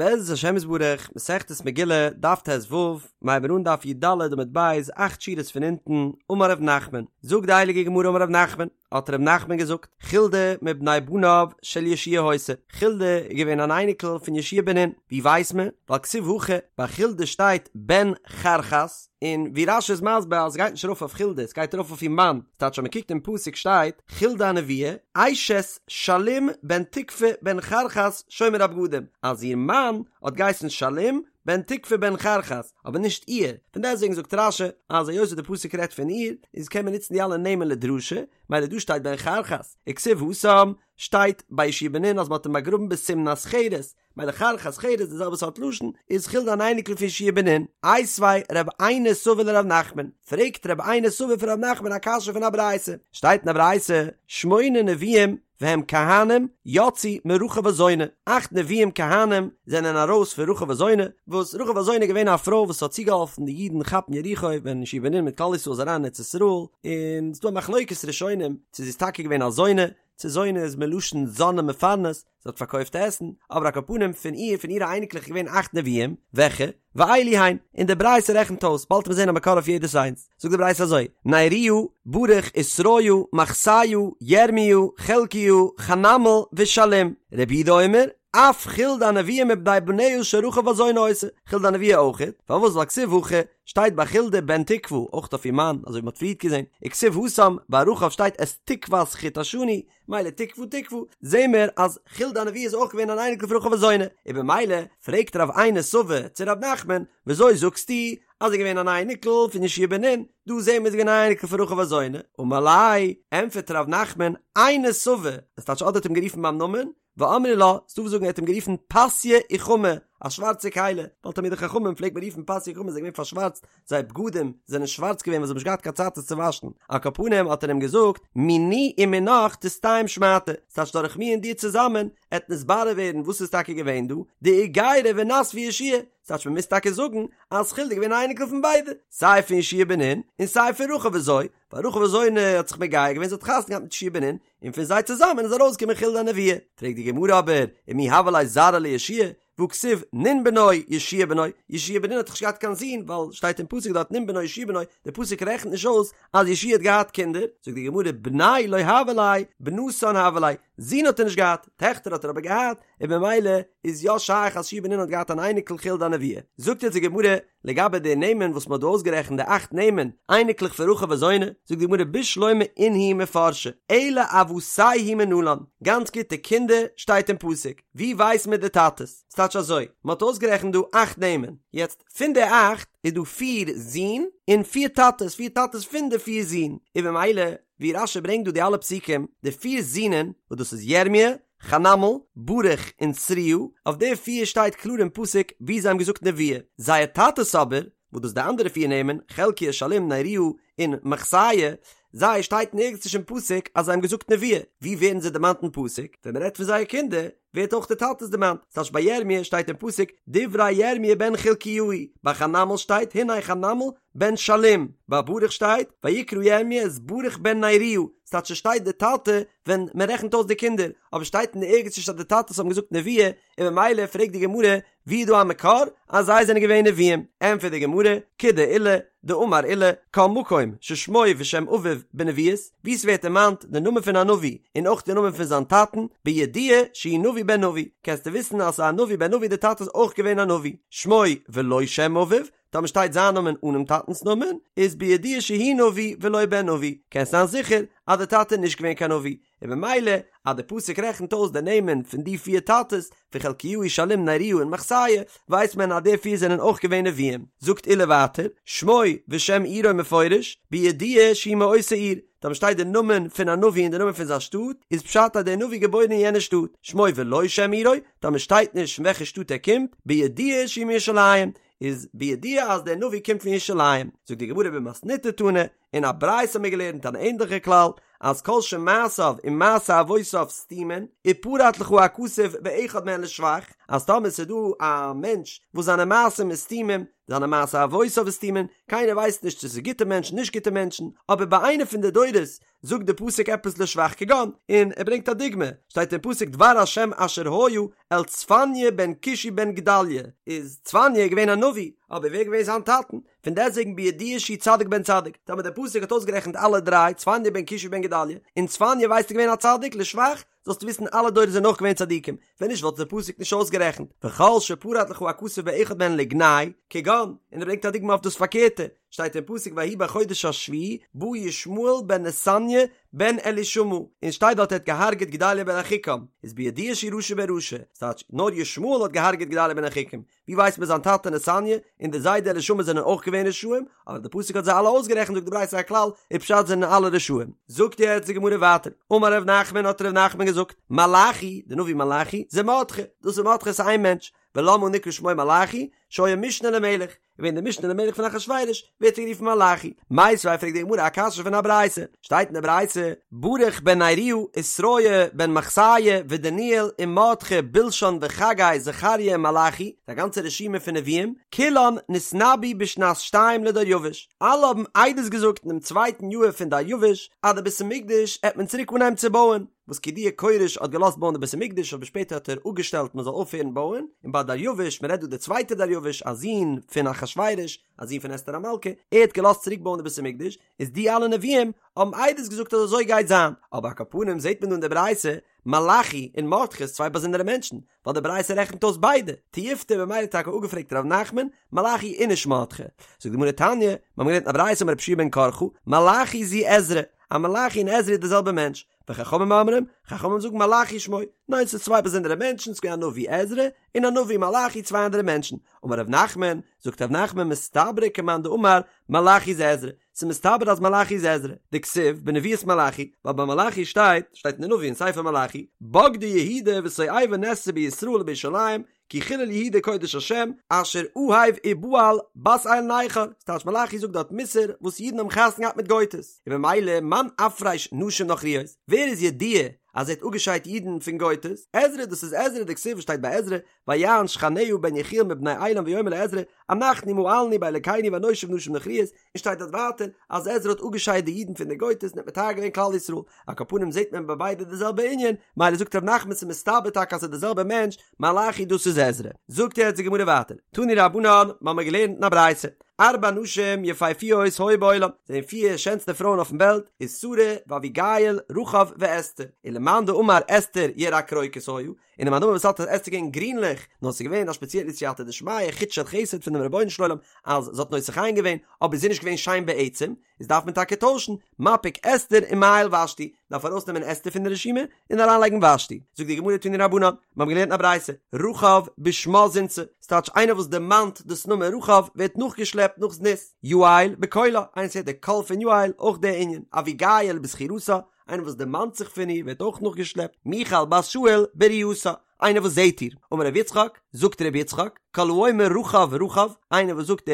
בעזרת השם יתברך, מסכת מגילה, דף ט"ו, מ'הייבן אן דף י"ד עמוד ב', אכט שורות פון אונטן, אמר ר' נחמן, זאגט די הייליגע גמרא אמר ר' נחמן, האט ר' נחמן געזאגט, חולדה מבני בניו של יהושע היתה, חולדה איז געווען אן אייניקל פון יהושע בן נון, ווי ווייסט מען? ווייל כתיב הכא, ביי חולדה שטייט בן חרחס, און ווי רש"י איז מסביר אז עס גייט נישט ארויף אויף חולדה, עס גייט ארויף אויף איר מאן, ס'טייטש אז מען קוקט אין פסוק שטייט, חולדה הנביאה, אשת שלום בן תקוה בן חרחס שומר הבגדים, אז איר מאן האט געהייסן שלום בן תקוה בן חרחס, אבער נישט איר, פון דעסטוועגן זאגט רש"י אז היות וואס די פסוק רעדט פון איר, איז קען מען נוצן די אלע נעמען לדרשה, מילא דא שטייט בן חרחס, וכתיב התם, שטייט ביי יהושע בן נון אז מען האט אים באגראבן בתמנת חרס, מילא חרחס חרס די זעלבע סארט לשון, איז חולדה אן אייניקל פון יהושע בן נון, איתיביה רב עינא סבא לרב נחמן, פרעגט רב עינא סבא פון רב נחמן א קשיא פון א ברייתא, שטייט אין א ברייתא, שמונה נביאים והם כהנים יצאו מרחב הזונה, אכט נביאים כהנים זענען ארויס פון רחב הזונה, וואס רחב הזונה איז געווען א פרוי וואס האט צוגעהאלפן די אידן כאפן יריחו ווען יהושע בן נון מיט כלל ישראל איז אריין אין ארץ ישראל, און ס'דא א מחלוקת ראשונים צו זי איז טאקע געווען א זונה, צו זונה איז מלשון זן ומפרנס, זי האט פארקויפט עסן, אבער על כל פנים פון איר, פון אירע אייניקלעך איז געווען אכט נביאים, וועלכע? ואלו הן, און די ברייתא רעכנט אויס, באלד וועט מען זען א מקור אויף יעדעס איינס, זאגט די ברייתא אזוי, נריה, ברוך ושריה, מחסיה, ירמיה, חלקיה, חנמאל, ושלום, רבי יהודה אומר, אף חולדה הנביאה מבני בניה של רחב הזונה היתה, חולדה הנביאה אויכעט, פארוואס ווייל כתיב הכא, שטייט ביי חולדה בן תקוה, אויך אויף איר מאן, אזוי ווי מ'האט פריערט געזען, וכתיב התם, ביי רחב שטייט את תקות חוט השני, מילא תקוה תקוה, זעהן מיר אז חולדה הנביאה איז אויך געווען אן אייניקל פון רחב הזונה, און במילא פרעגט רב עינא סבא צו רב נחמן, וויאזוי זאגסטו אז זי איז געווען אן אייניקל פון יהושע בן נון, דא זעהן מיר זי איז געווען אן אייניקל פון רחב הזונה, אמר ליה, ענטפערט רב נחמן, עינא סבא, עס טייטש אדער האט אים גערופן ביים נאמען, ואמרי לה, ס'דא וואס זאגן ער האט אים גערופן פסיא אוכמא, א שווארצע כלי, ווייל תלמידי חכמים פלעגט מען רופן פסיא אוכמא, זיי זענען געווען פארשווארצט, זייער בגדים זענען שווארץ געווען ווייל זיי האבן נישט געהאט קיין צייט עס צו וואשן, על כל פנים האט ער אים געזאגט, מיני ומינך תסתיים שמעתא, ס'טייטש דורך מיר און דיר צוזאמען, עט נתברר ווערן וואס איז טאקע געווען דא, דאיגיירה ונסבה יהושע, ס'טייטש מ'מוז טאקע זאגן אז חולדה איז געווען א אייניקל פון ביידע, סיי פון יהושע בן נון, און סיי פון רחב וויאזוי, ווייל רחב הזונה האט זיך מגייר געווען זי האט חתונה געהאט מיט יהושע בן נון, און פון זיי צוזאמען איז ארויסגעקומען חולדה הנביאה. פרעגט די גמרא אבער, ומי הוה ליה זרעא ליהושע, והכתיב נון בנו יהושע בנו, יהושע בן נון האט דאך נישט געהאט קיין זון, ווייל שטייט אין פסוק דארט נון בנו יהושע בנו, די פסוק רעכנט נישט אויס אז יהושע האט געהאט קינדער, זאגט די גמרא בני לא הוה ליה, בנתן הוה ליה, זין האט ער נישט געהאט, טעכטער האט ער אבער געהאט, און במילא איז יא שייך אז יהושע בן נון האט געהאט אן אייניקל חולדה הנביאה. זאגט יעצט די גמרא, לגבי די נעמען וואס מ'האט דא אויסגערעכנט די אכט נעמען, אייניקלעך פון רחב הזונה, זאגט די גמרא בשלמא אינהו מפרשי, אלא אבתייהו מנלן, גאנץ גוט די קינדער שטייט אין פסוק, ווי ווייסט מען די טאטעס? ס'טייטש אזוי, מ'האט אויסגערעכנט דא אכט נעמען, יעצט פון די אכט איז דא פיר זין און פיר טאטעס, פיר טאטעס פון די פיר זין, און במילא ווי רש"י ברענגט דא די אלע פסוקים, די פיר זינען, וואס דאס איז ירמיה, חנמאל, ברוך און שריה, אויף די פיר שטייט קלאר אין פסוק ווי זיי האבן געזאגט נבואה, זייער טאטעס אבער, וואס דאס די אנדערע פיר נעמען, חלקיה, שלום, נריה, און מחסיה, זיי שטייט נערגעץ נישט אין פסוק אז זיי האבן געזאגט נבואה, ווי ווערן זיי דערמאנט אין פסוק? ווען מען רעדט פון זייער קינדער, ווערט אויך די טאטעס דערמאנט, ס'טייטש ביי ירמיה שטייט אין פסוק דברי ירמיה בן חלקיהו, ביי חנמאל שטייט הנה חנמאל בן שלום, ביי ברוך שטייט ויקרא ירמיה את ברוך בן נריה, ס'טייטש ס'שטייט די טאטע ווען מען רעכנט אויס די קינדער, אבער שטייט אין ערגעץ נישט אז די טאטעס האבן געזאגט נבואה, און ממילא פרעגט די גמרא ווי איז דא א מקור אז זיי זענען געווען נביאים, ענטפערט די גמרא, כדעולא, דאמר עולא, כל מקום ששמו ושם אביו בנביאות, וואו ס'ווערט דערמאנט די נאמען פון א נביא און אויך די נאמען פון זיין טאטן, בידוע שהוא נביא בן נביא, קענסטו וויסן אז ס'איז א נביא בן נביא די טאטע איז אויך געווען א נביא, שמו ולא שם אביו, טאמער שטייט זיין נאמען אנעם טאטנ'ס נאמען, איז בידוע שהוא נביא ולא בן נביא, קענסט זיין זיכער אז די טאטע איז נישט געווען קיין נביא, און במילא אז די פסוק רעכנט אויס די נעמען פון די פיר טאטעס, פון חלקיהו שלום נריה און מחסיה, ווייסט מען אז די פיר זענען אויך געווען נביאים. זאגט עולא ווייטער, שמו ושם עירו מפורש, בידוע שהוא מאותה עיר, טאמער שטייט די נאמען פון א נביא און די נאמען פון זיין שטאט, איז פשט אז דער נביא געבוירן אין יענע שטאט, שמו ולא שם עירו, טאמער שטייט נישט פון וועלכע שטאט ער קומט, בידוע שהוא מירושלים, איז בידוע אז דער נביא קומט פון ירושלים, זאגט די גמרא במתניתא תנא, אין א ברייתא האבן מיר געלערנט אן ענדליכע כלל, אז כל שמעשיו ומעשי אבותיו סתומין, ופרט לך הכתוב באחד מהן לשבח, אז טאמער ס'איז דא א מענטש וואס זיינע מעשים איז סתומים, זיינע מעשה אבותיו סתומין, קיינער ווייסט נישט צו ס'איז גוטע מענטשן נישט גוטע מענטשן, אבער ביי איינע פון די דורות זאגט די פסוק עפעס לשבח כגון, און ער ברענגט א דוגמא, שטייט אין פסוק דבר השם אשר היה אל צפניה בן כושי בן גדליה, איז צפניה געווען א נביא, אבער ווער איז געווען זיין טאטן? פון דעסטוועגן בידוע שהוא צדיק בן צדיק, טאמער דער פסוק האט אויסגערעכנט אלע דריי, צפניה בן כושי בן גדליה, און צפניה ווייסטו געווען א צדיק, לשבח, זאלסטו וויסן אלע דורות זענען אויך געווען צדיקים, ווען נישט וואלט דער פסוק נישט אויסגערעכנט, וכל שפרט לך הכתוב באחד מהן לגנאי, כגון, און ער ברענגט א דוגמא אויף דאס פארקערטע, שטייט אין פסוק ויהי בחודש השביעי בא ישמעאל בן נתניה בן אלישמע, און שטייט דארט ער האט געהארגעט גדליה בן אחיקם, איז בידוע שהוא רשע בן רשע, ס'טייטש נאר ישמעאל האט געהארגעט גדליה בן אחיקם, ווי ווייסט מען זיין טאטע נתניה און די זיידע אלישמע זענען אויך געווען רשעים, אבער די פסוק האט זיי אלע אויסגערעכנט זאגט די ברייתא א כלל איז פשט זענען אלע רשעים. זאגט יעצט די גמרא ווייטער, אמר ר' נחמן האט ר' נחמן געזאגט, מלאכי, די נביא מלאכי, זה מרדכי, דאס איז מרדכי ס'איז איין מענטש, ולמה נקרא שמו מלאכי, שהיה משנה למלך, געווען די משנה למלך פון אחשורוש, ווערט ער גערופן מלאכי. מיתיבי פרעגט די גמרא א קשיא פון א ברייתא, שטייט אין די ברייתא, ברוך בן נריה, ושריה בן מחסיה, ודניאל, ומרדכי, בלשן וחגי, זכריה ומלאכי, די גאנצע רשימה פון נביאים, כולן נתנבאו בשנת שתיים לדריוש, אלע האבן עדות געזאגט אינעם צווייטן יאהר פון דריוש, אז די בית המקדש העט מען צוריק אנהייבן צו בויען. וואס כידוע כורש האט געלאזט בויען די בית המקדש אבער שפעטער האט ער אפגעשטעלט מען זאל אויפהערן בויען, און ביי דריוש, מען רעדט דא די צווייטע דריוש, א זון פון אחשורוש, א זון פון אסתר המלכה, ער האט געלאזט צוריק בויען די בית המקדש, איז די אלע נביאים האבן עדות געזאגט אז אזוי גייט זיין, אבער על כל פנים זעט מען דא אין די ברייתא, מלאכי און מרדכי איז צוויי באזונדערע מענטשן, ווייל די ברייתא רעכנט אויס ביידע, תיובתא במילא טאקע אפגעפרעגט ר' נחמן, מלאכי איז נישט מרדכי. זאגט די גמרא תניא, מיר האבן געלערנט אין א ברייתא אמר רבי יהושע בן קרחה, מלאכי זו עזרא, אז מלאכי און עזרא איז די זעלבע מענטש, וחכמים אומרים, חכמים זאגן מלאכי שמו, ניין ס'איז צוויי באזונדערע מענטשן, ס'איז געווען א נביא עזרא, און א נביא מלאכי צוויי אנדערע מענטשן, אמר ר' נחמן, זאגט ר' נחמן מסתברא כמאן דאמר מלאכי זה עזרא, ס'איז מסתבר אז מלאכי איז עזרא, דכתיב בנבואת מלאכי, ווייל ביי מלאכי שטייט, שטייט אין די נביא אין ספר מלאכי, בגדה יהודה ותועבה נעשתה בישראל ובירושלים, כי חילל יהודה קודש השם, אשר אהב ובעל בת אל נכר, ס'טייטש מלאכי זאגט דארט מוסר וואס אידן האבן חתונה געהאט מיט גויטעס, און במילא מאן אפריש נשים נכריות, ווער איז ידוע אז ער האט אפגעשיידט אידן פון גויטעס, עזרא דאס איז עזרא דכתיב וואס שטייט ביי עזרא, ויען שכניה בן יחיאל מבני עילם ויאמר לעזרא, אנחנו מעלנו באלקינו ונושיב נשים נכריות, און שטייט דארט ווייטער אז עזרא האט אפגעשיידט די אידן פון די גויטעס און האט מטהר געווען כלל ישראל, על כל פנים זעט מען ביי ביידע די זעלבע ענין, מילא זאגט ר' נחמן ס'איז מסתבר טאקע אז ס'איז די זעלבע מענטש, מלאכי דאס איז עזרא. זאגט יעצט די גמרא ווייטער, תנו רבנן, מ'האמיר געלערנט אין א ברייתא, ארבע נשים יפהפיות היו בעולם, זענען פיר שענסטע פרויען אויפן וועלט, איז שרה ואביגיל, רחב ואסתר, ולמאן דאמר אסתר ירקרוקות היו, און די מאן דאמר וואס האלט אז אסתר געווען גרינליך, נאר ס'איז געווען א שפעציעלע סייעתא דשמיא, חוט של חסד פונעם רבונו של עולם אז זי האט נושא חן געווען, אבער זי איז נישט געווען שיין בעצם, איז דארף מען טאקע טוישן, מפיק אסתר ומעייל ושתי, דארף ארויסנעמען אסתר פון די רשימה, און אריינלייגן ושתי. זאגט די גמרא תנו רבנן, מיר האבן געלערנט א ברייתא, רחב בשמה זינתה, ס'טייטש איינער וואס דערמאנט דאס נאמען רחב ווערט נאכגעשלעפט נאך זנות, יעל בקולה, איינער וואס הערט די קול פון יעל, אויך די ענין, אביגיל בזכירתה, איינער וואס דערמאנט זיך פון איר ווערט אויך נאכגעשלעפט, מיכל בת שאול בראייתה, איינער וואס זעט איר, אמר רבי יצחק, זאגט רבי יצחק, כל האומר רחב רחב, איינער וואס זאגט די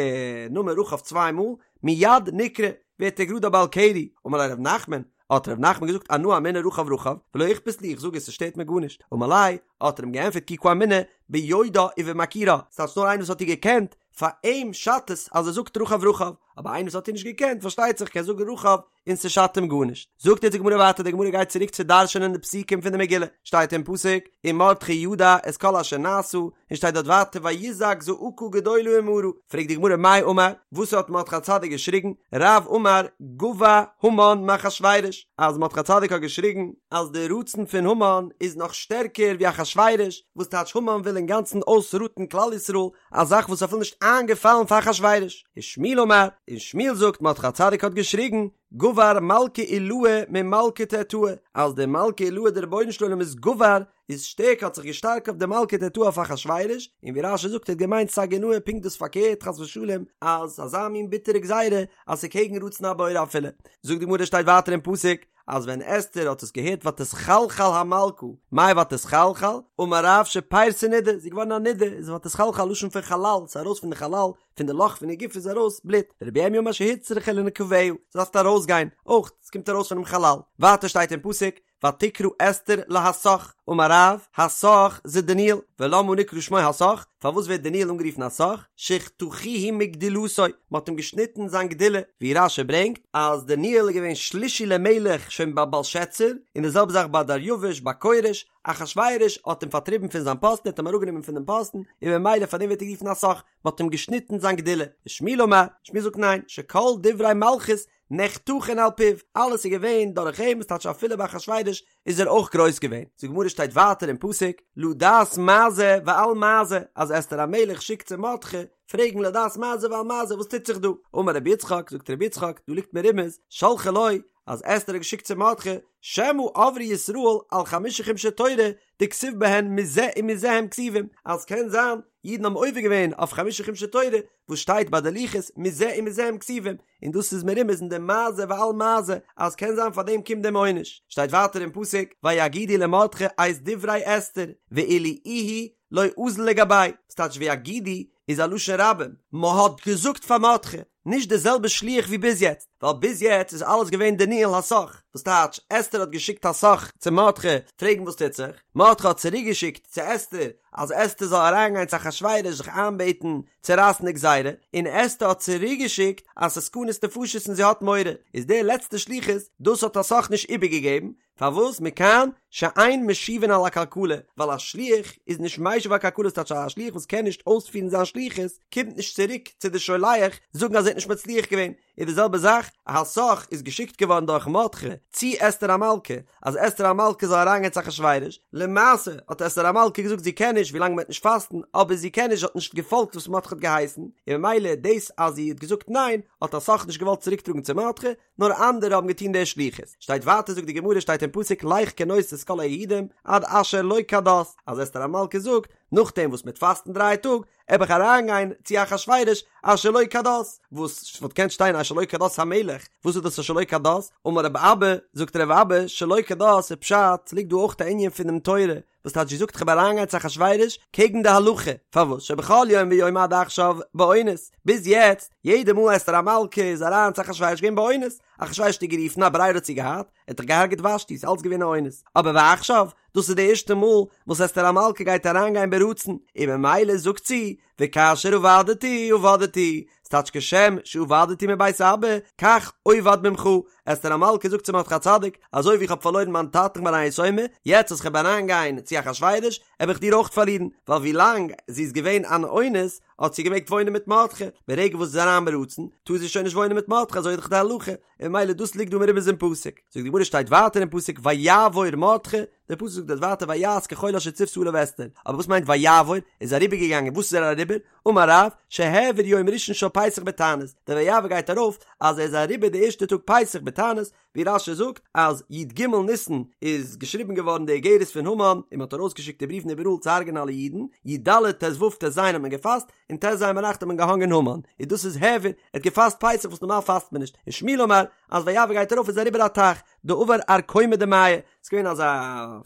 נאמען רחב צוויי מאל, מיד נקרא, ווערט ער גראד א בעל קרי, אמר ליה רב נחמן, האט רב נחמן געזאגט אנא אמינא רחב רחב, ולא איכפת לי, איך זאג עס, עס שטערט מיר גארנישט, אמר ליה, האט ער אים געענטפערט כי קאמינא ביודעה ובמכירה, ס'טייטש נאר איינער וואס האט איר געקענט, פאר אים שאדט עס אז ער זאגט רחב רחב, אבער איינער וואס האט איר נישט געקענט, פארשטייט זיך קען זאגן רחב, און ס'שאדט אים גארנישט. זאגט יעצט די גמרא ווייטער, די גמרא גייט צוריק צו דרש'ענען די פסוקים פון די מגילה, שטייט אין פסוק, ומרדכי ידע את כל אשר נעשה, און שטייט דארט ווייטער ויזעק זעקה גדולה ומרה, פרעגט די גמרא מאי אמר, וואס האט מרדכי הצדיק געשריגן, רב אמר גבה המן מאחשורוש, אז מרדכי הצדיק האט געשריגן אז די רצון פון המן איז נאך שטערקער ווי אחשורוש, וואס טייטש המן וויל אינגאנצן אויסראטן כלל ישראל, א זאך וואס איז אפילו נישט איינגעפאלן פאר אחשורוש. ושמואל אמר, און שמואל זאגט מרדכי הצדיק האט געשריגן, גבר מלכא עילאה ממלכא תתאה, אז דער מלכא עילאה דער רבונו של עולם איז גבר, איז שטערקער האט זיך געשטארקט אויף די מלכא תתאה אויף אחשורוש, און ווי רש"י זאגט ער האט געמיינט סגי נהור פונקט דאס פארקערט חס ושלום, אז אזא מין ביטערע גזירה אז ס'איז קעגן רצון הבורא אפילו. זאגט די גמרא שטייט ווייטער אין פסוק, אז ווען אסתר האט עס געהערט ותתחלחל המלכה, מאי ותתחלחל? אמר רב שפירתא נידה, זי איז געווארן א נידה, איז ותתחלחל לשון פון חלל, ס'איז ארויס פון די חלל, פון די לאך פון איר גוף איז ארויס בלוט, ורבי ירמיה אמר שהוצרכה לנקביה, זי דארף ארויסגיין, אויך, ס'קומט ארויס פונעם חלל. ווייטער שטייט אין פסוק, ותקרא אסתר להתך, אמר רב, התך זה דניאל, ולמה נקרא שמו התך? פארוואס ווערט דניאל אנגערופן התך? שחתכוהו מגדולתו, מען האט אים געשניטן זיין גדולה, ווי רש"י ברענגט אז דניאל איז געווען שלישי למלך שוין ביי בלשאצר, און די זעלבע זאך ביי דריוש ביי כורש, אחשורוש האט אים פארטריבן פון זיין פאסטן, ער האט אים אראפגענומען פון דעם פאסטן, און ממילא פאר דעם ווערט ער גערופן התך, מען האט אים געשניטן זיין גדולה. ושמואל אמר, שמואל זאגט ניין, שכל דברי מלכות נחתכין על פיו, אלעס איז געווען דורך אים, עס טייטש אפילו ביי אחשורוש איז ער אויך גרויס געווען. זאגט די גמרא שטייט ווייטער אין פסוק, לדעת מה זה ועל מה זה, אז אסתר המלך שיקט צו מרדכי פרעגן לדעת מה זה ועל מה זה וואס טוט זיך דא, אמר רבי יצחק, זאגט רבי יצחק, דא ליגט מרומז, שלחה לו, אז אסתר האט געשיקט צו מרדכי, שמא עברו ישראל על חמשה חומשי תורה דכתיב בהן מזה ומזה הם כתובים, אז קען זיין אידן האבן עובר געווען אויף חמשה חומשי תורה וואס שטייט ביי די לוחות מזה ומזה הם כתובים, און דאס איז מרומז אין די מה זה ועל מה זה אז קען זיין פאר דעם קומט דעם עונש, שטייט ווייטער אין פסוק ויגידו למרדכי את דברי אסתר ואילו איהו לא אזיל לגביה, וואס טייטש ויגידו איז א לשון רבים, מ'האט געזאגט פאר מרדכי, נישט די זעלבע שליח ווי ביז יעצט, ווייל ביז יעצט איז אלעס געווען דניאל התך, וואס טייטש אסתר האט געשיקט התך צו מרדכי פרעגן וואס טוט זיך, מרדכי האט צוריק געשיקט צו אסתר אז אסתר זאל אריינגיין צו אחשורוש זיך איינבעטן צו רייסן די גזירה, און אסתר האט צוריק געשיקט אז ס'איז סכנת נפשות און זי האט מורא, איז די לעצטע שליחות דאס האט התך נישט איבערגעגעבן, פארוואס מכאן שאין משיבין על עקלקלה, ווייל א שליח איז נישט משיב על עקלקלה ס'טייטש א שליח וואס קען נישט אויספירן זיין שליחות קומט נישט צוריק צו די שולח זאגן אז ער האט נישט מצליח געווען, איז די זעלבע זאך התך איז געשיקט געווארן דורך מרדכי צו אסתר המלכה אז אסתר המלכה זאל אריינגיין צו אחשורוש, למעשה האט אסתר המלכה געזאגט זי קען נישט ווילאנג מ'וועט נישט פאסטן, אבער זי קען נישט זי האט נישט געפאלגט וואס מרדכי האט געהייסן, און ממילא דאס אז זי האט געזאגט ניין האט התך נישט געוואלט צוריקטראגן צו מרדכי, נאר אנדערע האבן געטון די שליחות. שטייט ווייטער זאגט די גמרא שטייט אין פסוק לך כנוס את כל היהודים עד אשר לא כדת, אז אסתר המלכה זאגט, נאכדעם וואס מ'וועט פאסטן דריי טאג, עב איך אריינגיין צו אחשורוש אשר לא כדת, וואס וואלט געקענט שטיין אשר לא כדת המלך, וואס איז דאס אשר לא כדת? אמר רב אבא, זאגט רב אבא, שלא כדת איז פשט, ס'ליגט דא אויך א ענין פונעם תורה, וואס טייטש זי זאגט כ'וועל אריינגיין צו אחשורוש קעגן די הלכה, פארוואס שבכל יום ויום עד עכשיו באונס, ביז יעצט יעדע מאל אסתר המלכה איז אריין צו אחשורוש געווען באונס, אחשורוש האט איר גערופן א ברירה האט זי געהאט, ער האט דאך געהארגעט ושתי, ס'איז אלץ געווען א אונס, אבער ועכשיו, דאס איז די ערשטע מאל וואס אסתר המלכה גייט אריינגיין ברצון, און ממילא זאגט זי, וכאשר אבדתי אבדתי, ס'טייטש כשם שאבדתי מבית אבא, כך אובד ממך, אסתר המלכה זאגט צו מרדכי הצדיק, אזוי ווי איך האב פארלוירן מיין טאטן כ'בין א יתומה, יעצט אז כ'וועל אריינגיין צו אחשורוש, וועל איך דיר אויך פארלירן, ווייל ווי לאנג זי איז געווען אן אונס, האט זי געמעגט וואוינען מיט מרדכי, ברגע וואס זי איז אריין ברצון, טאר זי שוין נישט וואוינען מיט מרדכי, אזוי איז דאך די הלכה, און ממילא דאס ליגט דא מרומז אין פסוק. זאגט די גמרא שטייט ווייטער אין פסוק ויעבור מרדכי, דער פסוק זאגט דארט ווייטער ויעש ככל אשר צותה עליו אסתר, אבער וואס מיינט ויעבור? איז אריבער געגאנגען, וואס איז ער אריבער? אמר רב, שהעביר יום ראשון של פסח בתענית, דער ויעבור גייט ארויף אז ער איז אריבער די ערשטע טאג פסח בתענית, ווי רש"י זאגט אז י"ג ניסן איז געשריבן געווארן די איגרת פון המן און מען האט ארויסגעשיקט די בריוון איבעראל צו הרג'ענען אלע אידן, י"ד ט"ו ט"ז האט מען געפאסט, און ט"ז ביינאכט האט מען געהאנגען המן, און דאס איז העביר, ער האט געפאסט פסח וואס נארמאל פאסט מען נישט, און שמואל אמר אז ויעבור גייט ארויף איז אריבער א טייך, דעבר ארקומא דמיא, ס'איז געווען אזא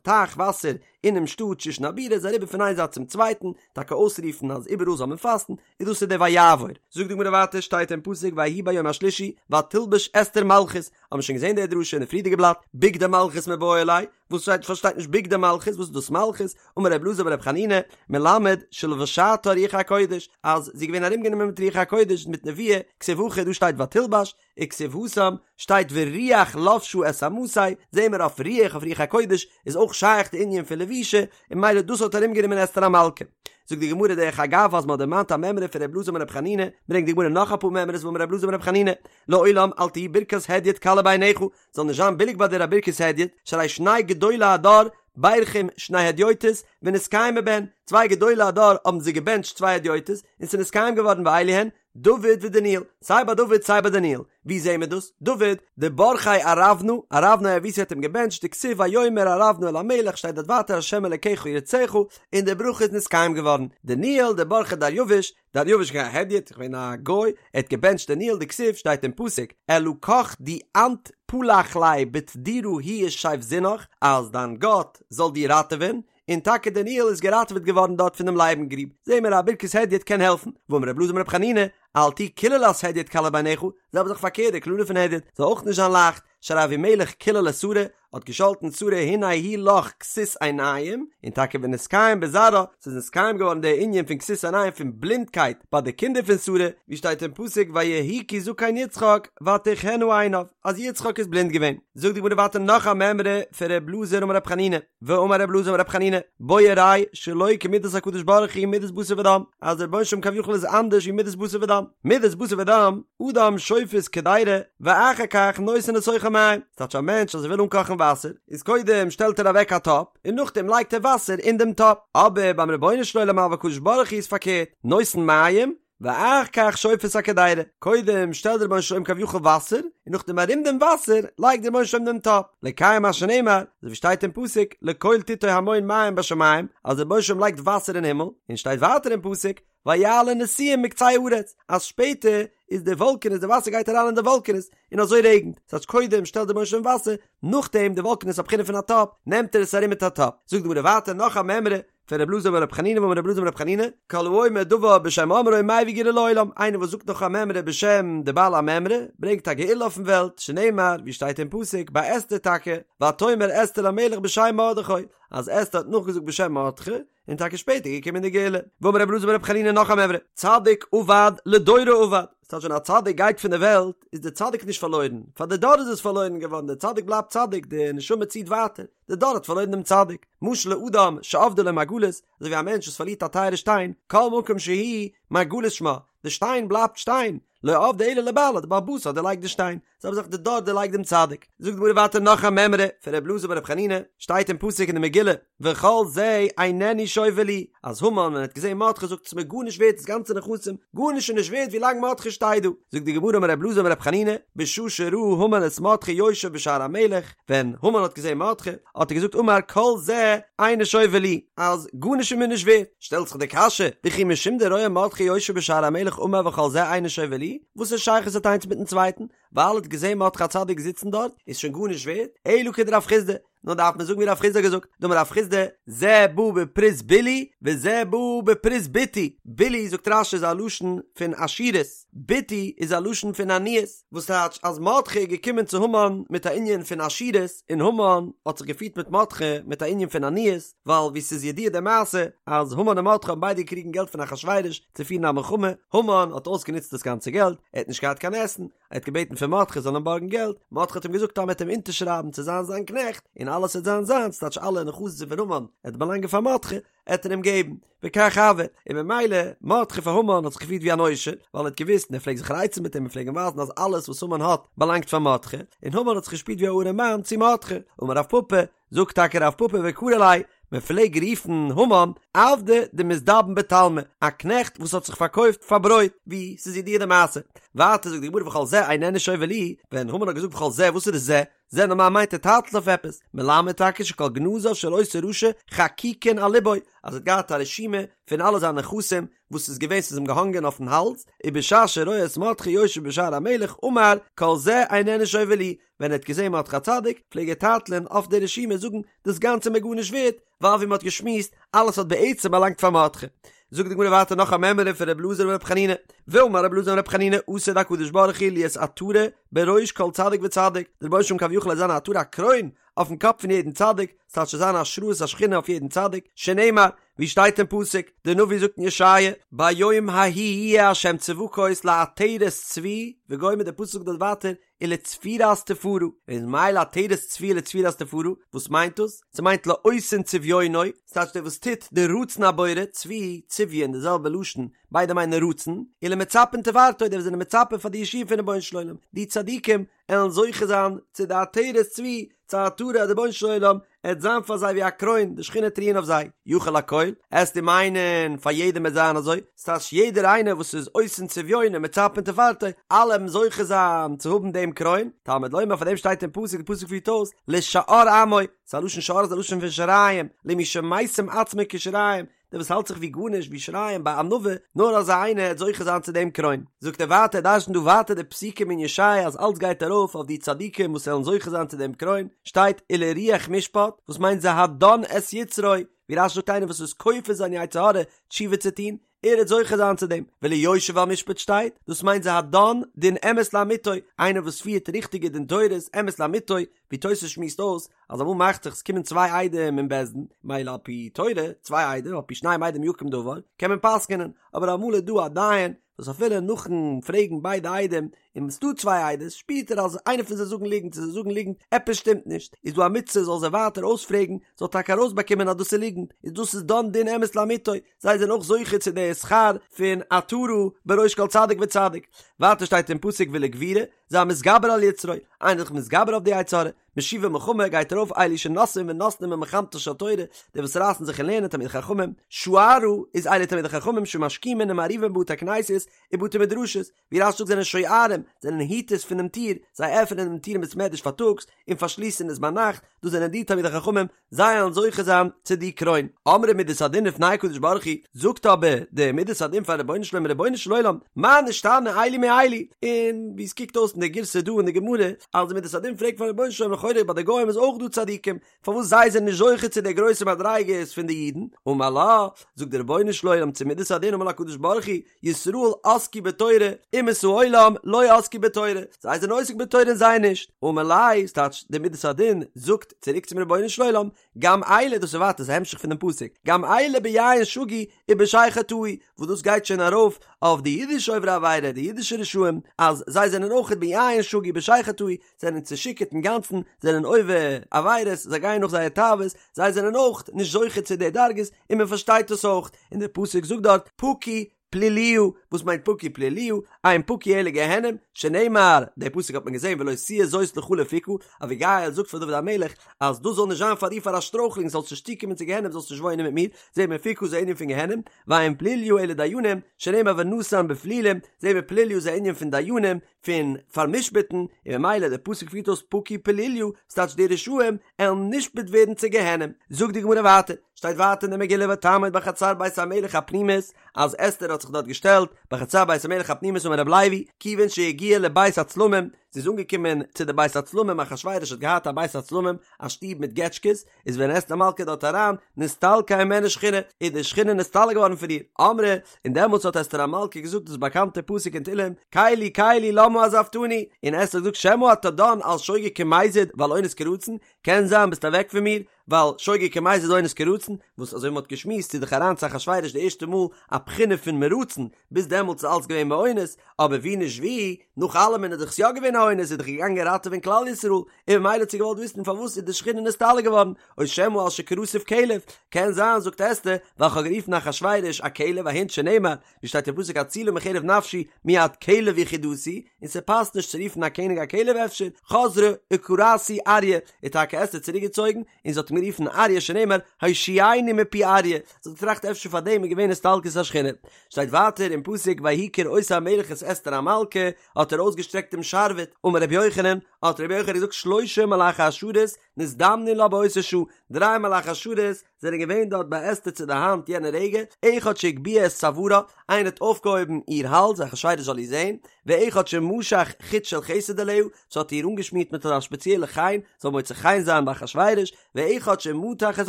טייך וואסער אינעם שטאט שושן הבירה, איז אריבער פון איין זייט צום צווייטן, טאקע אויסרופן אז איבעראל זאל מען פאסטן, און דאס איז דער ויעבור. זאגט די גמרא ווייטער שטייט אין פסוק ויהי ביום השלישי ותלבש אסתר מלכות, האבן מיר שוין געזען די דרשה אין די פריערדיגע בלאט, בגדי מלכות מיבעי ליה, וואס שטייט פארשטייט נישט בגדי מלכות וואס איז דאס מלכות, אמר רבי אלעזר ברבי חנינא, מלמד שלבשתה רוח הקודש, אז זי איז געווען ארומגענומען מיט רוח הקודש מיט נבואה, כתיב הכא דא שטייט ותלבש, וכתיב התם שטייט ורוח לבשה את אמתו, זעהן מיר אויף רוח אויף רוח הקודש איז אויך שייך די ענין פון לבישה, און ממילא דאס האט ארומגענומען אסתר המלכה. זאגט די גמרא דרך אגב אז מען האט דערמאנט א מימרא פון ר' אלעזר בן ר' חנינא, ברענגט די גמרא נאך אפאר מימרות ואמר ר' אלעזר בן ר' חנינא, לעולם אל תהי ברכת הדיוט קלה בעיניך, זאל נישט זיין ביליג ביי דיר א ברכת הדיוט, שהרי שני גדולי הדור בירכום שני הדיוטות ונתקיימו בהן, צוויי גדולי הדור האבן זיי געבענטשט צוויי הדיוטות און ס'איז נתקיים געווארן ואלו הן, דוד ודניאל, סיי ביי דוד סיי ביי דניאל, ווי זעהן מיר דאס? דוד, דברכיה ארונה, ארונה היבוסי האט אים געבענטשט, דכתיב ויאמר ארונה אל המלך שטייט דארט ווייטער השם אלקיך ירצך, און די ברכה איז נתקיים געווארן, דניאל דברכיה דריוש, דריוש געווען א הדיוט, געווען א גוי, ער האט געבענטשט דניאל דכתיב שטייט אין פסוק, אלקך די אנת פלח ליה בטדורא הוא ישיזבנך, אז דיין גאט זאל דיר ראטעווען, און טאקע דניאל איז געראטעוועט געווארן דארט פונעם לייבן גריב, זעהן מיר א ברכת הדיוט קען העלפן, ואמר רבי אלעזר בן רבי חנינא, אל תהי קללת הדיוט קלה בעיניך, זעלבע זאך פארקערט די קללה פון הדיוט זאל אויך נישט זיין לייכט, שהרי אבימלך קילל את שרה, האט געשאלטן שרה הנה הוא לך כסות עיניים, און טאקע ונתקיים בזרעה, ס'איז נתקיים געווארן דער ענין פון כסות עיניים פון בלינדקייט ביי די קינדער פון שרה, ווי שטייט אין פסוק ויהי כי זקן יצחק ותכהין עיניו, אז יצחק איז בלינד געווען. זאגט די גמרא ווייטער נאך א מימרא פון ר' אלעזר אמר ר' חנינא, ואמר ר' אלעזר אמר ר' חנינא, בוא וראה שלא כמידת הקדוש ברוך הוא מידת בשר ודם, אז דער רבונו של עולם כביכול איז אנדערש ווי מידת בשר ודם, מידת בשר ודם, אדם שופת קדירה, ואחר כך נותן לתוכה מים, ס'טייטש א מענטש אז ער וויל אנקאכן וואסער, איז קודם שטעלט ער אוועק א טאפ, און נאכדעם לייגט ער וואסער אין דעם טאפ, אבער ביים רבונו של עולם אבל הקדוש ברוך הוא איז פארקערט, נותן מים, ואחר כך שופת הקדירה, קודם שטעלט דער רבונו של עולם כביכול וואסער, און נאכדעם ארום דעם וואסער לייגט דער רבונו של עולם דעם טאפ, לקיים מה שנאמר, אזוי ווי שטייט אין פסוק, לקול טיטו המון מים בשמים, אז דער רבונו של עולם לייגט וואסער אין הימל, און שטייט ווייטער אין פסוק, ויעלו נשיאים מקצה הארץ, אז שפעטער איז די וואלקענעס, די וואסער גייט אריין אין די וואלקענעס, און אזוי רעגנט, ס'טייטש קודם שטעלט דער רבונו של עולם וואסער, נאכדעם די וואלקענעס א בחינה פון א טאפ, נעמט ער עס ארום מיט א טאפ. זאגט די גמרא ווייטער נאך א מימרא, פון רב אלעזר אמר רב חנינא ואמר רב אלעזר אמר רב חנינא, כל האומר דבר בשם אומרו מביא גאולה לעולם, איינער וואס זאגט נאך א מימרא בשם די בעל המימרא, ברענגט א גאולה אויפן וועלט, שנאמר, ווי שטייט אין פסוק, ביי אסתר טאקע, ותאמר אסתר למלך בשם מרדכי, אז אסתר האט נאכגעזאגט בשם מרדכי, און טאקע שפעטער געקומען די גאולה. ואמר רב אלעזר אמר רב חנינא נאך א מימרא, צדיק אבד לדורו אבד, ס'טייטש ווען א צדיק גייט פון די וועלט, איז די צדיק נישט פארלוירן, פאר די דור איז עס פארלוירן געווארן, די צדיק בלייבט צדיק, די נשמה ציט ווייטער, די דור האט פארלוירן דעם צדיק. משל לאדם שאבדה לו מרגלית, אזוי ווי א מענטש וואס פארלירט א טייערע שטיין, כל מקום שהוא, מרגלית שמה, די שטיין בלייבט שטיין, לא אבדה אלא לבעלה, די בעל הבית האט דערלייגט די שטיין, זעלבע זאך די דור דערלייגט דעם צדיק. זאגט די גמרא ווייטער נאך א מימרא פון ר' אלעזר בר' חנינא, שטייט אין פסוק אין די מגילה, וכל זה איננו שווה לי, אז המן ווען ער האט געזען מרדכי זאגט עס מיר גארנישט ווערט דאס גאנצע נכסים, גארנישט איז נישט ווערט ווי לאנג מרדכי שטייט דא. זאגט די גמרא אמר ר' אלעזר אמר ר' חנינא, בשעה שראה המן את מרדכי יושב בשער המלך, ווען המן האט געזען מרדכי, האט ער געזאגט אמר כל זה אינו שווה לי, אז גארנישט איז מיר נישט ווערט. שטעלט זיך די קשיא, וכי משום דרואה מרדכי יושב בשער המלך אמר וכל זה אינו שווה לי, וואס א שייכות האט איינס מיטן צווייטן? ווייל ער האט געזען מרדכי הצדיק זיצן דארט, איז שוין גארנישט ווערט? אלא כדרב חסדא, נאר דארף מען זאגן ווי רב חסדא האט געזאגט, דאמר רב חסדא, זה בא בפרוז בלי וזה בא בפרוז בתי, בלי זאגט רש"י איז א לשון פון עשירות, בתי איז א לשון פון עניות, וואס טייטש אז מרדכי איז געקומען צו המן מיט א ענין פון עשירות, און המן האט זיך געפירט מיט מרדכי מיט א ענין פון עניות, ווייל ווי ס'איז ידוע די מעשה אז המן און מרדכי האבן ביידע געקריגן געלט פון אחשורוש צו פירן א מלחמה, המן האט אויסגענוצט דאס גאנצע געלט, ער האט נישט געהאט קיין עסן, ער האט געבעטן פון מרדכי זאל אים בארגן געלט, מרדכי האט אים געזאגט אז מ'וועט אים אונטערשרייבן צו זיין זיין קנעכט, און אלעס וועט זיין זיינס, טייטש אלע נכסים פון המן וועט באלאנגען פאר מרדכי, עט ער אים געבן, וכך הוה, און ממילא, מרדכי פאר המן האט זיך געפירט ווי אן עושר, ווייל ער האט געוואוסט און ער פלעגט זיך רייצן מיט אים און פלעג אים ווייזן אז אלעס וואס המן האט באלאנגט פאר מרדכי, און המן האט זיך געשפירט ווי א ארעם מאן צו מרדכי, אמר רב פפא, זאגט טאקע רב פפא וקרו ליה, מען פלעג רופן המן עבדא דמזדבן בתלמא, א קנעכט וואס האט זיך פארקויפט פאר ברויט, ווי ס'איז ידוע די מעשה. ווייטער זאגט די גמרא וכל זה איננו שווה לי, ווען המן האט געזאגט וכל זה וואס איז דאס זה? זה נארמאל מיינט ער טייטלט אויף עפעס, מלמד טאקע שכל גנזיו של אותו רשע חקוקין על לבו, אז ער האט געהאט א רשימה פון אלע זיינע נכסים וואס איז געווען ס'איז אים געהאנגען אויפן האלז, ובשעה שרואה את מרדכי יושב בשער המלך אמר כל זה איננו שווה לי, ווען ער האט געזען מרדכי הצדיק פלעג ער טייטלען אויף די רשימה זאגן דאס גאנצע איז מיר גארנישט ווערט, ווייל ווי מ'האט געשמועסט אלעס האט בעצם באלאנגט פאר מרדכי. זאגט די גמרא ווייטער נאך א מימרא פון ר' אלעזר בר' חנינא, ואמר ר' אלעזר בר' חנינא עתיד הקדוש ברוך הוא להיות עטרה בראש כל צדיק וצדיק, דער רבונו של עולם כביכול עט זיין א עטרה א קרוין אויפן קאפ פון יעדן צדיק, ס'טייטש ס'זאל זיין השראת השכינה אויף יעדן צדיק, שנאמר, ווי שטייט אין פסוק, דער נביא זאגט אין ישעיה, ביום ההוא יהיה ה' צבקות לעטרת צבי, וגומר דער פסוק זאגט דארט ווייטער, ולצפירת תפארה, איז מאי לעטרת צבי ולצפירת תפארה, וואס מיינט דאס? ס'מיינט לעושין צביונו, ס'טייטש דער וואס טוט די רצון הבורא, צבי, צביון, די זעלבע לשון, ביידע מיינען רצון, ולמצפין תפארתו, די וואס זענען מצפה פאר די ישועה פון רבונו של עולם, די צדיקים עלן זוכה זיין צו די עטרת צבי, צו עטרה אז די רבונו של עולם עט זיין פאר זיי ווי א קרוין, די שכינה עט רוען אויף זיי, יכול לכל, עסטו מיינען פאר יעדעם עט זיין אזוי, ס'טייטש יעדער איינער וואס איז עושין צביונו מצפין תפארתו, אלע עלן זוכה זיין צו האבן דעם קרוין, תלמוד לומר פאר דעם שטייט אין פסוק, די פסוק פירט אויס, לשאר עמו, ס'איז א לשון שאר איז א לשון פון שיריים, למי שמשים עצמו כשיריים, דער וואס האלט זיך ווי גארנישט ווי שיריים בענווה, נאר אזא איינער העט זוכה זיין צו דעם קרוין. זאגט ער ווייטער, דרש'נט דא ווייטער די פסוקים אין ישעיה אז אלץ גייט ארויף אויף די צדיקים וואס וועלן זוכה זיין צו דעם קרוין, שטייט ולרוח משפט, וואס מיינט זה הדן את יצרו, ווי רש"י זאגט איינער וואס איז כופה זיין יצר הרע תשובה צו טון, ער וועט זוכה זיין צו דעם, וליושב על משפט שטייט, דאס מיינט זה הדן דין אמת לאמיתו, איינער וואס פירט ריכטיגע דין תורות אמת לאמיתו, ווי תוס' שמועסט אויס אז אמאל מאכט זיך עס קומען צוויי עדים אין בית דין, מילא על פי תורה, צוויי עדים, על פי שניים עדים יקום דבר, קען מען פסק'נען, אבער אמאל איז דא א דיין וואס אפילו נאכן פרעגן ביידע עדים, און ס'דא צוויי עדות, שפירט ער אז איינער פון זיי זאגן ליגנט צו זיי זאגן ליגנט, עפעס שטימט נישט, איז דא א מצוה זאל זיי ווייטער אויספרעגן, זאל טאקע ארויסבאקומען אז דאס איז ליגנט, איז דאס איז דן דין אמת לאמיתו, זיי זענען אויך זוכה צו די שכר פון עטרה בראש כל צדיק וצדיק. ווייטער שטייט אין פסוק ולגבורה, זה המתגבר על יצרו, איינער איז זיך מתגבר אויף די יצר הרע, משיבי מלחמה גייט ארויף אלו שנושאים ונותנים במלחמתה של תורה, די וואס רייסן זיך אין לערנען תלמידי חכמים, שוערה איז אלו תלמידי חכמים שמשכימין ומעריבין בתי כנסיות ובתי מדרשות, ווי רש"י זאגט זענען שוערים, זענען היטערס פונעם טיר, זיי עפענען דעם טיר אין בית מדרש פארטאגס און פארשליסן עס ביינאכט, דאס זענען די תלמידי חכמים, זיי וועלן זוכה זיין צו די קרוין. אמרה מידת הדין לפני הקדוש ברוך הוא, זאגט אבער די מידת הדין פארן רבונו של עולם, רבונו של עולם, מה נשתנה אלו מאלו? און ווי עס קוקט אויס אין די גירסא דא אין די גמרא, אז די מידת הדין פרעגט פארן רבונו של עולם לכאורה ביי די גוים איז אויך דא צדיקים, פארוואס זיי זענען נישט זוכה צו די גרויסע מדריגות פון די אידן? אמר לה, זאגט דער רבונו של עולם צו מידת הדין אמר לה הקדוש ברוך הוא, ישראל עסקו בתורה, אומות העולם לא עסקו בתורה, זיי זענען עוסק בתורה און זיי נישט, אמר ליה, ס'טייטש די מידת הדין זאגט צוריק צום רבונו של עולם, גם אלו, דאס איז ווייטער ס'איז א המשך פונעם פסוק, גם אלו ביין שגו ובשכר טעו, וואס דאס גייט שוין ארויף אויף די אידישע עוברי עבירה, די אידישע רשעים, אז זיי זענען אויך ביין שגו ובשכר טעו, זענען צושיכורט אינגאנצן, זענען עובר עבירות, זיי גייען נאך זייער תאוות, זיי זענען אויך נישט זוכה צו די דרגות, און מען פארשטייט עס אויך, און דער פסוק זאגט דארט פקו פלוליה, וואס מיינט פקו פלוליה, אין פקו אלא גיהנום, שנאמר, די פסוק האט מען געזען ולא תהיה זאת לך לפוקה, אביגיל זאגט פאר דוד המלך אז דאס זאל נישט זיין פאר דיר פאר א שטרויכלונג, זאלסט נישט צוקומען צו גיהנום, זאלסט נישט וואוינען מיט מיר, זעהט מען פוקה איז א ענין פון גיהנום, ואין פלוליה אלא דיינים, שנאמר ונתן בפלולים, זעהט מען פלוליה איז א ענין פון דיינים, פון פאר'משפט'ן, און ממילא דער פסוק פירט אויס פקו פלוליה, ס'טייטש די רשעים עלן נשפט ווערן צו גיהנום. זאגט די גמרא ווייטער, שטייט ווייטער אין די מגילה ותעמוד בחצר בית המלך הפנימית, אז אסתר האט זיך דארט געשטעלט בחצר בית המלך הפנימית אמר רבי לוי, כיוון שהגיעה לבית הצלמים, זי איז אנגעקומען צו די בית הצלמים, אחשורוש האט געהאט א בית הצלמים, א שטוב מיט געטשקעס, איז ווען אסתר המלכה דארט אריין, נסתלקה הימנה שכינה, איז די שכינה נסתלק געווארן פון איר, אמרה, און דעמאלטס האט אסתר המלכה געזאגט דאס באקאנטע פסוק אין תהלים, קלי קלי למה עזבתני, און אסתר האט געזאגט שמא אתה דן על שוגג כמזיד ועל אונס כרצון, קען זיין ביסט אוועק פון מיר, ווייל שוגג כמזיד אונס כרצון, וואס אזוי ווי מ'האט געשמועסט איז דאך אריין צו אחשורוש די ערשטע מאל א בחינה פון מרצון, ביז דעמאלטס איז אלץ געווען באונס, אבער ווי נישט ווי, נאך אלעמען איז דאך עס יא געווען א אונס, איז דאך געגאנגען ראטעווען כלל ישראל, און ממילא האט זי געוואלט וויסן פארוואס איז די שכינה נסתלק געווארן, או שמא על שקראתיו כלב, קען זיין זאגט אסתר, ווייל כ'האב גערופן אחשורוש א כלב א הונט שנאמר, ווי שטייט אין פסוק הצילה מחרב נפשי מיד כלב יחידתי, און ס'פאסט נישט צו רופן א קעניג א כלב אפשר, חזרה וקראתו אריה, איז טאקע אסתר צוריק געצויגן, און זי האט אים גערופן אריה שנאמר הושיעני מפי אריה, זי האט געטראכט אפשר פאר דעם איז געווען הסתלקות השכינה. שטייט ווייטער אין פסוק ויהי כראות המלך את אסתר המלכה, האט ער אויסגעשטרעקט דעם שרביט, אמר רבי יוחנן, האט רבי יוחנן געזאגט שלשה מלאכי השרת נזדמנו לה באותה שעה, דריי מלאכי השרת זענען געווען דארט ביי אסתר צו די האנט יענע רגע, אחד שהגביה את צווארה, איינער האט אויפגעהויבן איר האלז אחשורוש זאל איר זען, ואחד שמשח חוט של חסד עליה, ס'האט איר אנגעשמירט מיט אזא שפעציעלע חן, זאל מוצא חן זיין ביי אחשורוש, ואחד שמתח את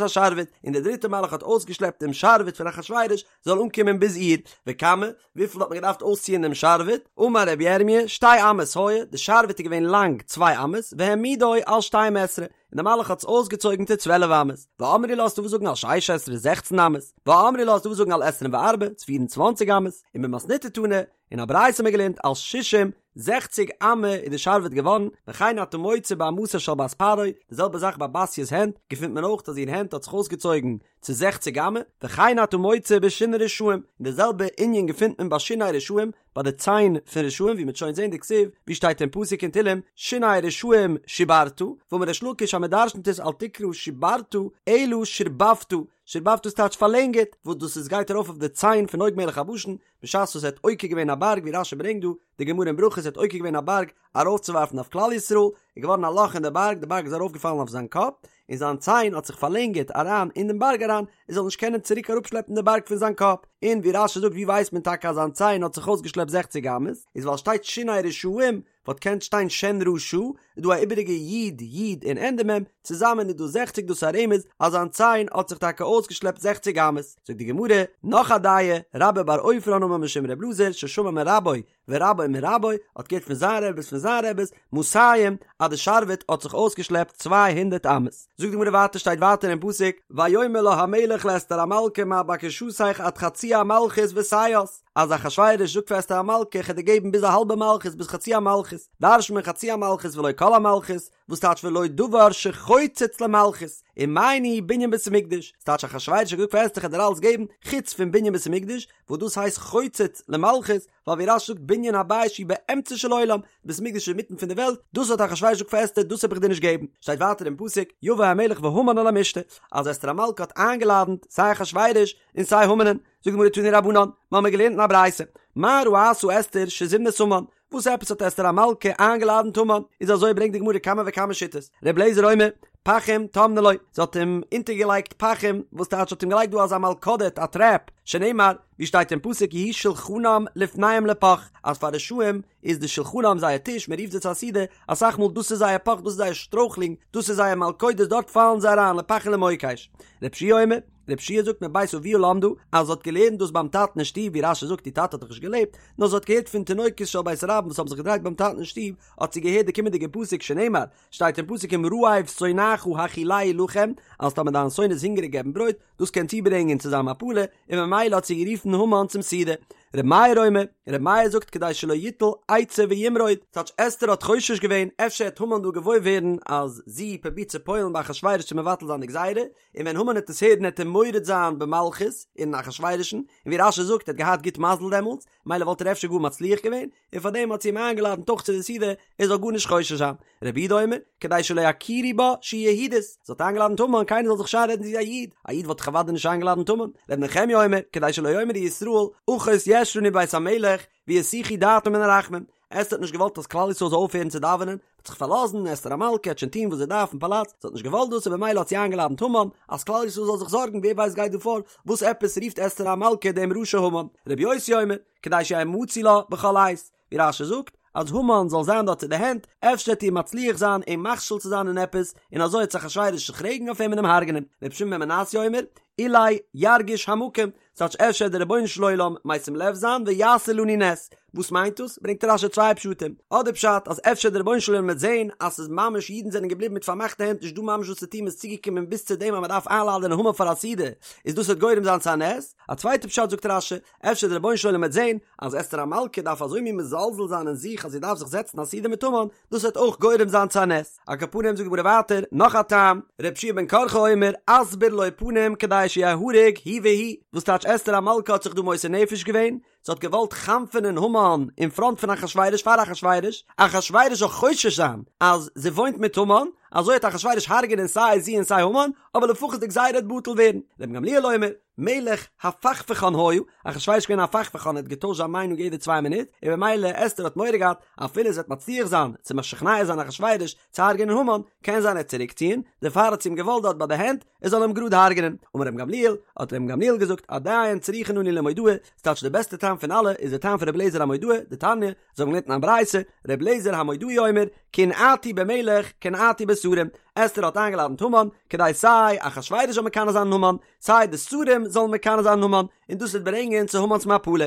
השרביט, און דער דריטער מלאך האט אויסגעשלעפט דעם שרביט פון אחשורוש, זאל אנקומען ביז איר, וכמה, וויפיל האט מען געדארפט אויסציען דעם שרביט, אמר רבי ירמיה, שתי אמות היה, די שרביט איז געווען לאנג צוויי אמות, והעמידו על שתים עשרה, און דער מלאך האט עס אויסגעצויגן צו צוועלף אמות, ואמרי לה ס'דא וואס זאגן על שש עשרה זעכצן אמות, ואמרי לה ס'דא וואס זאגן על עשרים וארבע, צו פיר און צוואנציג אמות, און במתניתא תנא, אין א ברייתא האט מען געלערנט על שישים, זעכציג אמה איז די שרביט געווארן, וכן אתה מוצא באמתה של בת פרעה, די זעלבע זאך ביי בתיה'ס הענט, געפינט מען אויך אז איר הענט האט זיך אויסגעצויגן צו זעכציג אמה, וכן אתה מוצא בשיני רשעים, און די זעלבע ענין געפינט מען ביי שיני רשעים, ביי די ציין פון רשעים, ווי מ'וועט שוין זען דכתיב, ווי שטייט אין פסוק אין תהלים, שיני רשעים שיברת, ואמר ריש לקיש אז מ'דרשנ'ט עס אל תקרא שיברת, אלא שירבבת, שירבבת איז טייטש פארלענגערט, וואס דאס איז גייט ארויף אויף די ציין פון עוג מלך הבשן, בשעת וואס ער האט עוקר געווען א בארג ווי רש"י ברענגט דא, די גמרא אין ברכות ער האט עוקר געווען א בארג ארויפצואווארפן אויף כלל ישראל, איז געווארן א לאך אין די בארג, די בארג איז ארויפגעפאלן אויף זיין קאפ, און זיין ציין האט זיך פארלענגערט אריין אין דעם בארג אריין, ער זאל נישט קענען צוריק אראפשלעפן די בארג פון זיין קאפ, און ווי רש"י זאגט ווי ווייסט מען טאקע אז זיין ציין האט זיך אויסגעשלעפט זעכציג אמות, איז ווייל שטייט שיני רשעים. וואלט געקענט שטיין שן רשע, איז דא א איבעריגע י' י' און ענדע מ', צוזאמען איז דא זעכציג דאס איז א רמז אז זיין ציין האט זיך טאקע אויסגעשלעפט זעכציג אמות, זאגט די גמרא, נאך א דעה, רבה בר עופרן אמר משום ר' אלעזר ששמע מרבו ורבו מרבו, האט געהערט פון זיין רבי'ס פון זיין רבי'ס, מאתים, אז די שרביט האט זיך אויסגעשלעפט 200 אמות. זאגט די גמרא ווייטער שטייט ווייטער אין פסוק, ויאמר לה המלך לאסתר המלכה מה בקשתך עד חצי המלכות ותעש, אז אחשורוש זאגט פאר אסתר המלכה איך וועל דיר געבן ביז א האלבע מלכות ביז חצי המלכות, דרש'נט מען חצי המלכות ולא כל המלכות, וואס טייטש ולא דבר שחוצץ למלכות, ומאי ניהו בנין בית המקדש, ס'טייטש אחשורוש האט געזאגט פאר אסתר איך וועל דיר אלעס געבן חוץ פון בנין בית המקדש, וואס דאס הייסט חוצץ למלכות, ווייל ווי רש"י זאגט בנין הבית שהוא באמצע של עולם, בית המקדש איז אינמיטן פון די וועלט, דאס האט אחשורוש געזאגט פאר אסתר דאס האב איך דיר נישט געבן, שטייט ווייטער אין פסוק, יבא המלך והמן אל המשתה, אז אסתר המלכה האט איינגעלאדנט סיי אחשורוש און סיי המנ'ן, זאגט די גמרא תנו רבנן, מיר האבן געלערנט אין א ברייתא, מה ראתה אסתר שזימנת המן, וואס עפעס האט אסתר המלכה איינגעלאדנט המן, איז אזוי ברענגט די גמרא כמה וכמה שיטות, ר' אליעזר אומר, פחים טמנה לו, זי האט אים אונטערגעלייגט פחים, וואס טייטש האט אים געלייגט דא אזא מלכודת, א טרעפ, שנאמר, ווי שטייט אין פסוק יהי שלחנם לפניהם לפח, אז פאר רשעים איז די שלחנם זייער טיש, מען רופט זיי צו א סעודה, אסאך מאל דאס איז זייער פח, דאס איז זייער שטרויכלינג, דאס איז זייער מלכודת, דארט פאלן זיי אריין, לפח ולמוקש. ר' יהושע אומר, ר' יהושע זאגט מבית אביה למדה, אז זי האט געלערנט דאס ביים טאטן אין שטוב, ווי רש"י זאגט איר טאטע האט דאך נישט געלעבט, נאר זי האט געהערט פון תינוקות של בית רבן וואס האבן זיך געדרייט ביים טאטן אין שטוב, האט זי געהערט די קומענדיגע פסוק שנאמר, שטייט אין פסוק אם רעב שונאך האכילהו לחם, אז טאמער דיין שונא איז הונגעריג געב אים ברויט, דאס קען צוברענגען צו זיין מפלה, און ממילא האט זי גערופן המן צום סעודה. ר' מאיר אומר, ר' מאיר זאגט כדי שלא יטול עצה וימרוד, ס'טייטש אסתר האט חושש געווען אפשר העט המן דא געוואויר ווערן אז זי פרובירט צו פועל'ן ביי אחשורוש צו מבטל זיין די גזירה, און ווען המן העט עס הערן העט ער מורד זיין במלכות אין אחשורוש'ן, און ווי רש"י זאגט ער האט געהאט גוט מזל דעמאלטס, מילא וואלט ער אפשר גאר מצליח געווען, און פארדעם האט זי אים איינגעלאדענט אויך צו די סעודה ער זאל גארנישט חושש זיין. רבי יהודה אומר, כדי שלא יכירו בה שהיא יהודית, זי האט איינגעלאדענט המן קיינער זאל זיך נישט איינרעדן זי איז א איד, א איד וואלט דאך אוודאי נישט איינגעלאדענט המן. רבי נחמיה אומר, כדי שלא יאמרו ישראל, אחות יש לנו בבית המלך, ויסיחו דעתם מן הרחמים. אסתר האט נישט געוואלט אז כלל ישראל זאל אויפהערן צו דאווענען, האט זיך פארלאזן, אסתר המלכה העט שוין טון וואס זי דארף אין פאלאץ, זי האט נישט געוואלט דאס און במילא האט זי איינגעלאדענט המן, אז כלל ישראל זאל זיך זארגן ווער ווייסט גייט דא פאר, וואס עפעס רופט אסתר המלכה דעם רשע המן? רבי יוסי אומר, כדי שיהא מצוי לה בכל עת, ווי רש"י זאגט, אז המן זאל זיין דארט צו די הענט, אפשר וועט איר מצליח זיין אים מכשיל צו זיין אין עפעס, און אזוי וועט זיך אחשורוש זיך רעגן אויף אים און אים הרג'נען. רבי שמעון בן מנסיא אומר, אולי ירגיש המקום, ס'טייטש אפשר וועט דער רבונו של עולם משים לב זיין ויעשה לנו נס. וואס מיינט דאס? ברענגט רש"י צוויי פשטים. אדער פשט אז אפשר דער רבונו של עולם וועט זען אז ס'איז ממש אידן זענען געבליבן מיט פארמאכטע הענט נישט דא ממש וואס צו טון מ'איז צוגעקומען ביז צו דעם אז מ'דארף איינלאדענען המן פאר א סעודה, איז דאס וועט גורם זיין צו א נס. א צווייטע פשט זאגט רש"י, אפשר דער רבונו של עולם וועט זען אז אסתר המלכה דארף אזוי מין מזלזל זיין אין זיך אז זי דארף זיך זעצן א סעודה מיט המן, דאס וועט אויך גורם זיין צו א נס. על כל פנים זאגט די גמרא ווייטער נאך א טעם, רבי יהושע בן קרחה אומר, אסביר לו פנים כדי שיהרג הוא והיא, וואס טייטש אסתר המלכה האט זיך דא מוסר נפש געווען, זי האט געוואלט חנפ'ענען המן אין פראנט פון אחשורוש פאר אחשורוש, אחשורוש זאל חושש זיין אז זי וואוינט מיט המן, אזוי וועט אחשורוש הרג'ענען סיי זי און סיי המן, אבער לפחות די גזירה וועט בטל ווערן. רבן גמליאל אומר, מלך הפכפכן היה, אחשורוש איז געווען א הפכפכן ער האט געטוישט זיין מיינונג יעדע צוויי מינוט, און במילא אסתר האט מורא געהאט אפילו זי וועט מצליח זיין צו משכנע זיין אחשורוש צו הרג'ענען המן, קען זיין ער וועט צוריק ציען, דערפאר האט זי אים געוואלט דארט ביי די הענט, ער זאל אים גראד הרג'ענען. אמר רבן גמליאל, האט רבן גמליאל געזאגט, עדיין צריכין אנו למודעי, ס'טייטש די בעסטע טעם פון אלע איז די טעם פון רבי אליעזר המודעי, דתניא, אזוי האבן געלערנט אין א ברייתא, רבי אליעזר המודעי אומר, קנאתי במלך, קנאתי בשרים, אסתר האט איינגעלאדנט המן, כדי סיי אחשורוש זאל מקנא זיין אין המן, סיי די שרים זאלן מקנא זיין אין המן, און דאס וועט ברענגען צו המן'ס מפלה.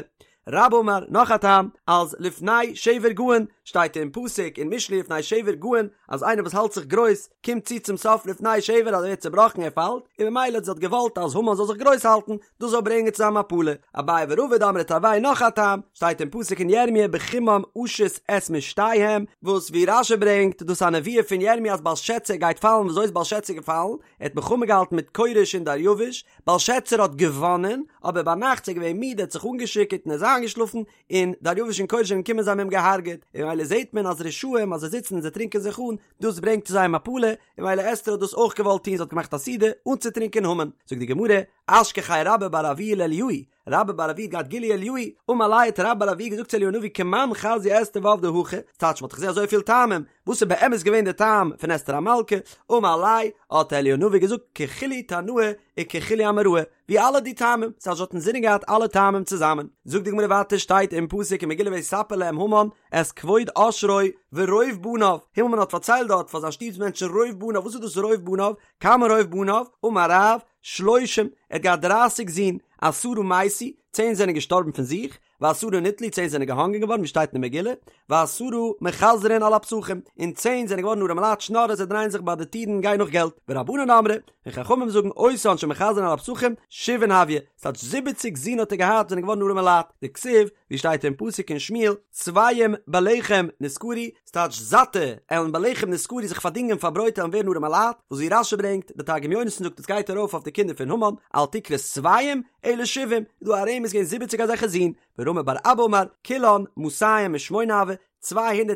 רבה אמר, נאך א טעם, אז לפני שבר גאון, שטייט אין פסוק אין משלי לפני שבר גאון, אז איינער וואס האלט זיך גרויס, קומט צו צום סוף לפני שבר אז ער ווערט צעבראכן ער פאלט, און ממילא זי האט געוואלט אז המן זאל זיך גרויס האלטן, דאס זאל ברענגען צו זיין מפלה. אביי ורבא דאמרי תרוייהו נאך א טעם, שטייט אין פסוק אין ירמיה בחמם אשית את משתיהם, וואס ווי רש"י ברענגט, דאס איז א נבואה פון ירמיה אז בלשצר גייט פאלן, ווי אזוי איז בלשצר געפאלן? ער האט מלחמה געהאלטן מיט כורש און דריוש, בלשצר האט געוואנען, אבער ביינאכט איז ער געווען מיד ער האט זיך אנגעשיכורט און ער איז איינגעשלאפן, און דריוש און כורש זענען געקומען זיי האבן אים געהארגעט, און ממילא זעט מען אז רשעים אז זיי זיצן און זיי טרינקען זיך אן, דאס ברענגט צו זייער מפלה, און ממילא אסתר האט דאס אויך געוואלט טון זי האט געמאכט א סעודה אנצוטרינקען המן, זאגט די גמרא, אשכחיה רבה בר אבוה לאליהו. רבה בר אבוה האט געהאט גילוי אליהו, אמר ליה האט רבה בר אבוה געזאגט צו אליהו הנביא כמאן חזיא אסתר ועבדה הכי, ס'טייטש מ'האט דאך געזען אזויפיל טעמים, וואס איז באמת געווען די טעם פון אסתר המלכה, אמר ליה האט אליהו הנביא געזאגט ככולהו תנאי וככולהו אמוראי, ווי אלע די טעמים, ס'טייטש זי האט אינזינען געהאט אלע טעמים צוזאמען. זאגט די גמרא ווייטער שטייט אין פסוק אין מגילה ויספר להם המן את כבוד עושרו ורוב בניו, המן האט פארציילט דארט פאר זיין שטוב'ס מענטשן רוב בניו, וואס איז דאס רוב בניו? כמה רוב בניו? אמר רב, שלושים, ער האט געהאט דרייסיג זין, עשרה מתו, צען זענען געשטארבן פון זיך, ועשרה נתלו, צען זענען געהאנגען געווארן, ווי שטייט אין די מגילה, ועשרה מחזרין על הפתחים, און צען זענען געווארן ארעמע לייט שנארער, זיי דרייען זיך ביי די טירן און גייען נאך געלט, ורבנן אמרי, און חכמים זאגן אותן שמחזרין על הפתחים, שבעין הוו, ס'טייטש זיבעציג זין האט ער געהאט זענען געווארן ארעמע לייט, דכתיב, ווי שטייט אין פסוק אין שמואל, שבעים בלחם נשכרו, ס'טייטש זאטע עלן בלחם נשכרו זיך פארדינגען פאר ברויט עלן ווערן ארעמע לייט, וואס ווי רש"י ברענגט, די תרגום יונתן זאגט עס גייט ארויף אויף די קינדער פון המן, אל תקרי שבעים, אלא שבעים, איז דא א רמז געווען זיבעציג אזעלכע זין, ורמי בר אבא אמר, כולן מאתים ושמונה הוו, 208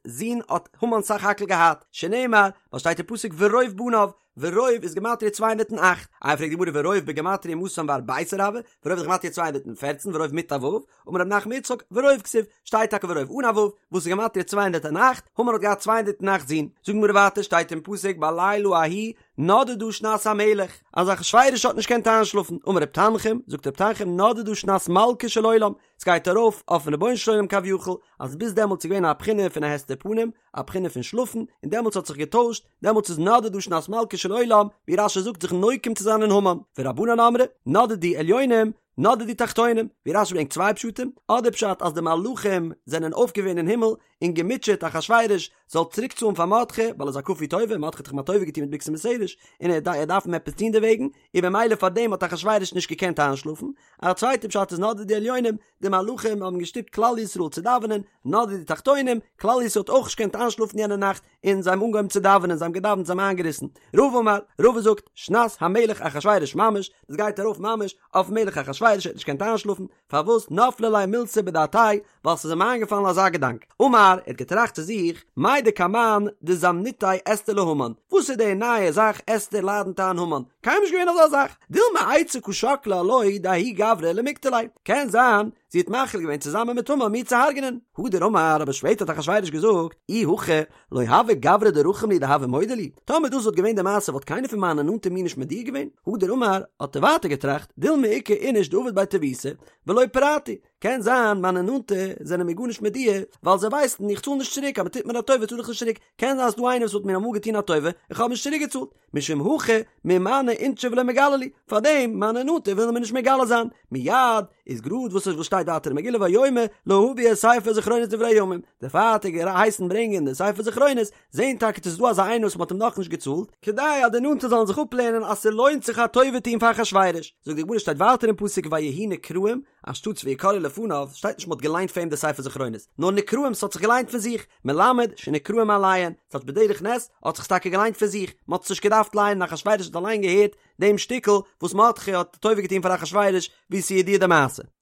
זין האט המן סך הכל געהאט, שנאמר, ווייל שטייט אין פסוק ורוב בניו, ורוב איז גמטריא 208, איי פרעגט די גמרא ורוב בגמטריא מאתים וארביסר הוה, ורוב איז גמטריא 214, ורוב מיט א ו', אמר רב נחמן בר יצחק, ורוב כתיב, שטייט טאקע ורוב אן א ו', וואס איז גמטריא 208, המן האט געהאט 208 זין, זאגט די גמרא ווייטער שטייט אין פסוק בלילה ההוא נדדה שנת המלך, אז אחשורוש האט נישט געקענט איינשלאפן, אמר רב תנחום, זאגט רב תנחום נדדה שנת מלכו של עולם, ס'גייט ארויף אויפן רבונו של עולם כביכול, אז ביז דעמאלטס איז געווען א בחינה פון א הסתר פנים, א בחינה פון שלאפן, און דעמאלטס האט זיך געטוישט, דעמאלטס איז נדדה שנת מלכו של עולם, ווי רש"י זאגט זיך נוקם צו זיין אין המן, ורבנן אמרי, נדדו עליונים, נדדו תחתונים, ווי רש"י ברענגט צוויי פשטים, אדער פשט אז די מלאכים זענען אויפגעווען אין הימל און געמוטשעט אחשורוש זאל צוריק צאלן פאר מרדכי, ווייל ער איז א כפוי טובה, מרדכי האט דאך אים א טובה געטון מיט בגתן ותרש, און ער דארף אים עפעס טון דערוועגן, און במילא פאר דעם האט אחשורוש נישט געקענט איינשלאפן, א צווייטע פשט איז נדדו עליונים, די מלאכים האבן געשטופט כלל ישראל צו דאווענען, נדדו תחתונים, כלל ישראל האט אויך נישט געקענט איינשלאפן יענע נאכט, און זיי האבן אנגעהויבן צו דאווענען, זיי האבן געדאווענט, זיי האבן איינגעריסן. רבא אמר, רבא זאגט, שנת המלך אחשורוש ממש, דאס גייט ארויף ממש אויפן מלך אחשורוש, ער האט נישט געקענט איינשלאפן, פארוואס נפלה ליה מילתא בדעתיה, ווייל ס'איז אים איינגעפאלן אזא געדאנק. אמר, ער האט געטראכט צו זיך, מאי דקמן דזמניתיה אסתר להמן, וואס איז די נייע זאך אסתר לאדנט איין המן, קיינמאל נישט געווען אזא זאך, דילמא עצה קא שקלה עילויה דההוא גברא למיקטליה, קען זיין זי האט מחליט געווען צוזאמען מיט המן מיר צו הרג'נען. הדר אמר, אבער שפעטער האט אחשורוש געזאגט, אי הכי, לא הוה גברא דרחים לי דהוה מודע לי, טאמער דאס וואלט געווען די מעשה וואלט קיינער פון מיינע נאנטע מיר נישט מודיע געווען. הדר אמר, האט ער ווייטער געטראכט, דילמא איכא איניש דעביד בי טיבותא, ולא פרעתי, קען זיין מיינע נאנטע זענען מיר גארנישט מודיע, ווייל זיי ווייסן איך צאל נישט צוריק, אז מען טוט מיר א טובה צאל איך נישט צוריק, קען זיין אז ס'דא איינער וואס וואלט מיר אמאל געטון א טובה, איך האב נישט צוריק געצאלט. משום הכי מימנעי אינשי ולא מגלו לי, פארדעם מיינע נאנטע ווילן מיר נישט מגלה זיין, מיד איז גראד וואס וואס שטייט ווייטער אין מגילה ויאמר להביא את ספר זכרונות דברי הימים, דערפאר האט ער געהייסן ברענגען די ספר זכרונות, זעהן טאקע צו ס'איז דא אזא איינער וואס מ'האט אים נאכנישט געצאלט, כדי אז די נאנטע זאלן זיך אפלערנען אז ס'לוינט זיך א טובה טון פאר אחשורוש, זאגט די גמרא שטייט ווייטער אין פסוק ויהיו נקראים, אנשטאטס ויקראו לפניו, שטייט נישט מ'האט געליינט פאר אים די ספר זכרונות, נאר נקראים ס'האט זיך געליינט פון זיך, מלמד שנקראים מאליהן, ס'טייטש בדרך נס האט זיך עס טאקע געליינט פון זיך, מ'האט עס נישט געדארפט לייענען אחשורוש האט אליין געהערט דעם שטיקל וואס מרדכי האט טובה געטון פאר אחשורוש ווי ס'איז ידוע די מעשה.